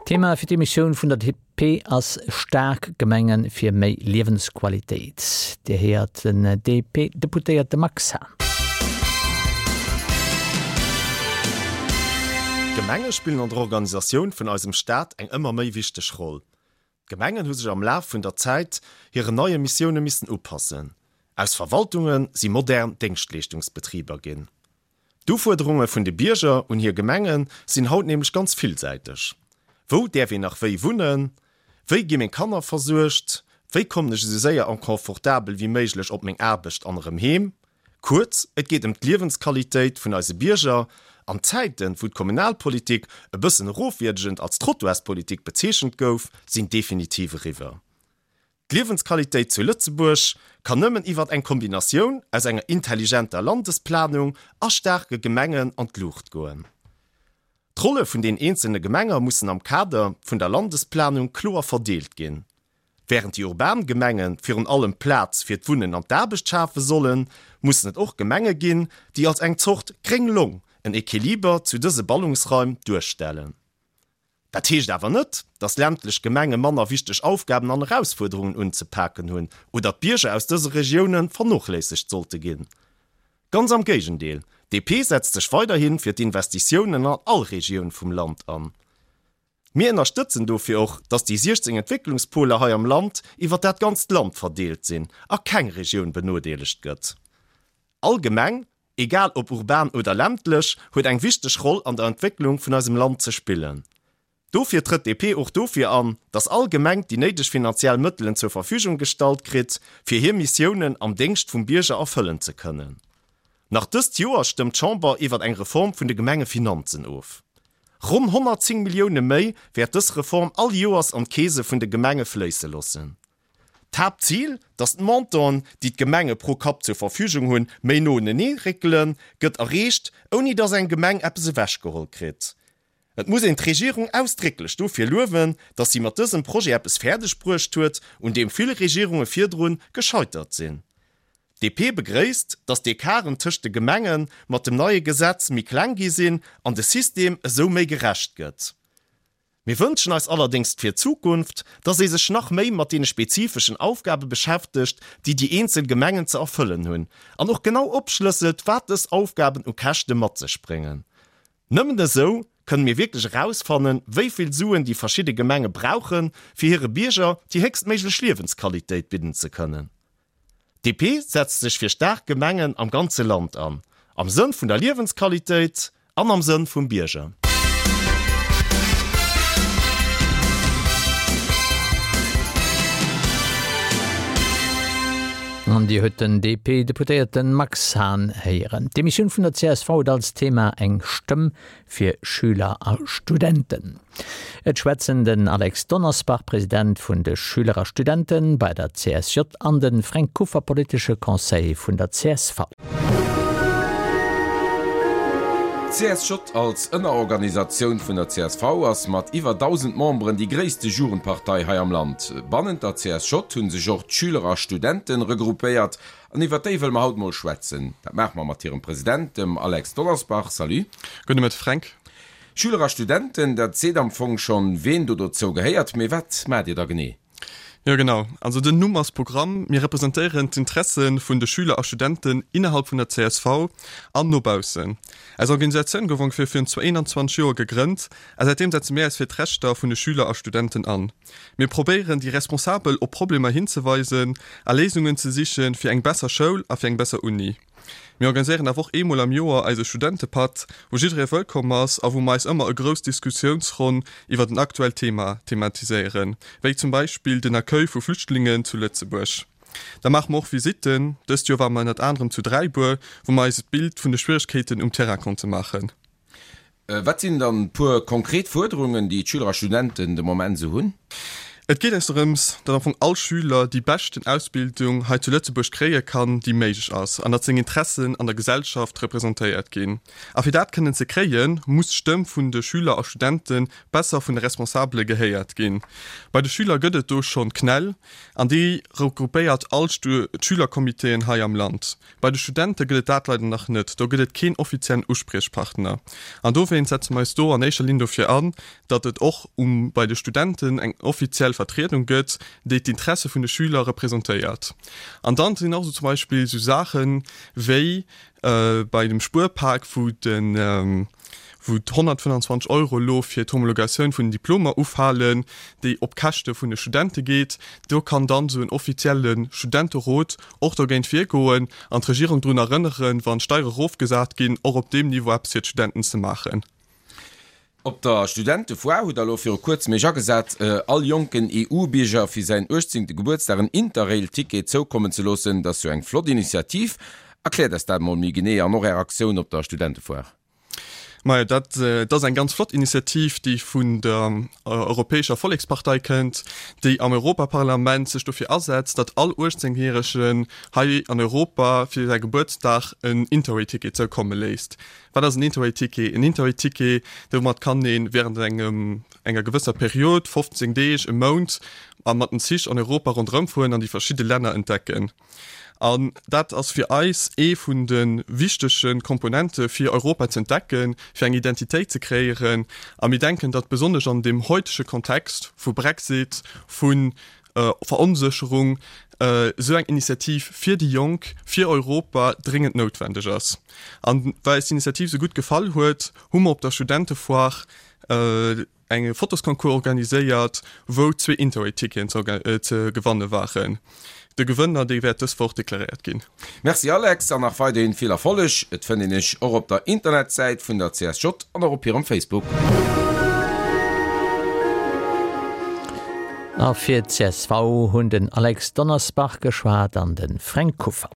Thema fir d'Emissioun vun der DP ass Staark Gemenge fir méi Liewensqualitéit. Dir héiert den DP-Deputéierte Max Hahn. D'Gemenge spillen an der Organisatioun vun eisem Staat eng ëmmer méi wichteg Roll. D'Gemengen hu sech am Laf vun der Zäit hiren neie Missioune missen upassen. Aus Verwaltunge si modern Déngschtleeschtungsbetriber ginn. D'Ufuerderunge vun de Bierger un hir Gemenge sinn haut nämlech ganz villsäiteg. Wou däerf een nach wéi wunnen? Wéi gi meng Kanner versuergt? Wéi kommen ech esou séier an confortabel wéi méiglech op meng Aarbecht an erëm heem? Kuerz, et geet ëm d'Liewensqualitéit vun eise Bierger. An d'Zäiten, wou d'Kommunalpolitik e bëssen erofwierdegend als Trottoirspolitik bezeechent gouf, sinn definitiv eriwwer. D'Liewensqualitéit zu Lëtzebuerg kann nëmmen iwwert eng Kombinatioun aus enger intelligenter Landesplanung a staarke Gemengen an d'Luucht goen. D'Rolle vun den eenzelne Gemenger mussen am Kader vun der Landesplanung kloer verdeelt ginn. Wärend déi urban Gemenge virun allem Plaz fir d'Wunnen an d'Aarbecht schafe sollen, mussen et och Gemenge ginn, déi als eng Zort gréng Long en Equiliber zu dëse Ballungsraim duerstellen. Dat heescht awer net, dass ländlech Gemenge manner wichteg Aufgaben an Erausfuerderungen unzepaken hunn oder d'Bierger aus dëse Regioune vernochléissegt sollte ginn. Ganz am Géigendeel, DP setzt sech weiderhi fir d'Investitiounen an all Regioun vum Land an. Mir ënnerstëtzen dofir och, dass déi 16 Entwécklungspoler hei am Land iwwer dat ganzt Land verdeelt sinn a keng Regioun benodeelegt gëtt. All Gemeng egal ob urban oder ländlech, huet eng wichteg Roll an der Entwécklung vun eisem Land ze spillen. Dofir trëtt DP och dofir an, dass all Gemeng déi néideg finanziell Mëttelen zur Verfügung gestallt kritt, fir hir Missiounen am Déngscht vum Bierger erfëllen ze kënnen. Nach dëst Joer stëmmt d'Chamber iwwert eng Reform vun de Gemengefinanzen of. Ronn 110 Millioune méi wäert dës Reform all Joers an d'Keese vun de Gemenge fléisse loossen. D'Haaptzil, datt d'Montanten, déi d'Gemenge pro Kapp zur Verfügung hunn, méi no unenee réckelen, gëtt erreecht, ouni datt eng Gemeng eppes ewechgeholl kritt. Et muss een d'Regierung ausdrécklech dofir luewen, datt si mat dësem Projet eppes fäerdeg bruecht huet, un deem vill Regierunge virdrun gescheitert sinn. D'DP begréisst, datt d'Ecarten tëscht de Gemenge mat dem neie Gesetz méi kleng gi sinn an de System esou méi gerecht gëtt. Mir wënschen eis allerdéngs fir d'Zukunft, dass ee sech nach méi mat deene spezifeschen Aufgabe beschäftegt, déi déi eenzel Gemengen ze erfëllen hunn, an och genau opschlësselt, wat dës Aufgaben u Käschte mat sech bréngen. Nëmmen esou kënne mir wierklech erausfannen, wéi vill Suen déi verschidde Gemenge brauchen, fir hire Bierger déi héchstméiglech Liewensqualitéit bidden ze kënnen. DP setzt sech fir staark Gemengen am ganze Land an, am Sënn vun der Liewensqualitéit an am Sënn vum Bierger. An Dir huet den DP-Deputéierten Max Hahn héieren. D'Demissioun vun der csv huet als Thema eng Stëmm fir Schüler a Studenten. Et schwätzen den Alex Donnersbach, President vun de Schüler a Studenten bei der CSJ an de Fränk Kuffer, politesche Conseiller vun der csv. D'CSJ als Ënnerorganisatioun vun der csv ass mat iwwer 1.000 Memberen déi gréisste Jugendpartei hei am Land. Bannent der CSJ hu sech och d'Schüler a Studenten regroupéiert An iwwert déi wëlle mer haut mol schwätzen. Dat maache mer mat hirem President, dem Alex Donnersbach. Salut. Gudde Mëtteg, Fränk. Schüler a Studenten, dat seet am Fong schonn, ween do dozou gehéiert. Mee wat maacht Dir da genee? Jo, genau. Also den Numm ass Programm. Mir representéieren d'Interesse vun de Schüler a Studenten innerhalb vun der csv an no baussen. Eis Organisatioun gouf ongeféier virun 21 Joer gegrënnt a säitdeem setze mir eis fir d'Rechter vun de Schüler a Studenten an. Mir probéieren déi Responsabel op Problemer hinzeweisen a Léisungen ze sichen fir eng besser Schoul a fir eng besser Uni. Mir organiséieren awer och eemol am Joer eise Studentepatt, wou jidderee wëllkomm ass a wou mer eis ëmmer e grouss Diskussiounsronn iwwert en aktuellt Thema thematiséieren, wéi zum Beispill den Accueil vu Flüchtlingen zu Lëtzebuerg. Da maache mer och Visitten. Dëst Joer ware mer ënnert anerem zu Dräibuer, wou mer eis e Bild vun de Schwieregkeeten um Terrain konnte maachen. Wat sinn dann puer konkret Fuerderungen, déi d'Schüler a Studenten de Moment esou hunn? Et geet eis dorëms, datt am Fong all Schüler déi beschten Ausbildung hei zu Lëtzebuerg kréie kann, déi méiglech ass, an datt seng Interessen an der Gesellschaft representéiert ginn. A fir dat kënnen ze kréien, muss d'Stëmm vun de Schüler a Studente besser vun de Responsabele gehéiert ginn. Bei de Schüler gëtt et do schonn d'CNEL, an déi regroupéiert all d'Schülercomitéen hei am Land. Bei de Studente gëtt et dat leider nach net, do gëtt et keen offiziellen Uspriechpartner. An dowéinst setze mer eis do an éischer Linn dofir an, datt et och um bei de Studenten eng offiziell Vertriedung gëtt, déi d'Interesse vun de Schüler representéiert. An dann sinn och esou zum Beispill esou Saache wéi bei dem Spuerpak, wou de wou d'125 Euro elo fir d'Homologatioun vun den Diplomer ufalen, déi op Käschte vun de Studente geet. Do kann dann esou en offizielle Studenterot och dogéint virgoen an d'Regierung drun erënneren, wann d'Steiere erofgesat ginn, och op deem Niveau eppes fir d'Studenten ze maachen. Op der Studentefoire hutt der elo viru kuerzem Iech agesat, all jonken EU-Bierger fir säin uechtzéngte Gebuertsdag en Interrail-Ticket zoukommen ze loossen. Dat ass jo eng flott Initiativ. Erkläert eis dat mol méi genee an och Är Aktioun op der Studentefoire. Majo, dat ass eng ganz flott Initiativ, déi vun der Europäescher Vollekspartei kënnt, déi am Europaparlament sech dofir asetzt, datt all 18 Järegen hei an Europa fir säi Gebuertsdag en Interrail-Ticket zoukomme léisst. Wat ass en Interrail-Ticket? En Interrail-Ticket, domat kann ee während engem, enger gewësser Period, 15 Deeg, e Mount, a mat den Zich an Europa ronderëm fueren an déi verschidde Länner entdecken. An dat ass fir eis ee vun de wichtege Komponente fir Europa ze entdecken, fir eng Identitéit ze kreéieren. A mir denken, datt besonnesch an deem heutege Kontext vu Brexit, vu Veronsécherung, esou eng Initiativ fir déi Jonk, fir Europa dréngend noutwendeg ass. An well eis d'Initiativ esou gutt gefall huet, hu mer op der Studentefoire eng Fotosconcours organiséiert, wou zwee Interrail-Ticketen ze gewanne waren. De Gewënner, dee wäert dës Woch deklaréiert ginn. Merci Alex, an nach weiderhin vill Erfolleg. Et fënnt een iech och op der Internetsäit vun der CSJ an och op hirem Facebook. A fir d'CSV hunn den Alex Donnersbach geschwat an de Fränk Kuffer.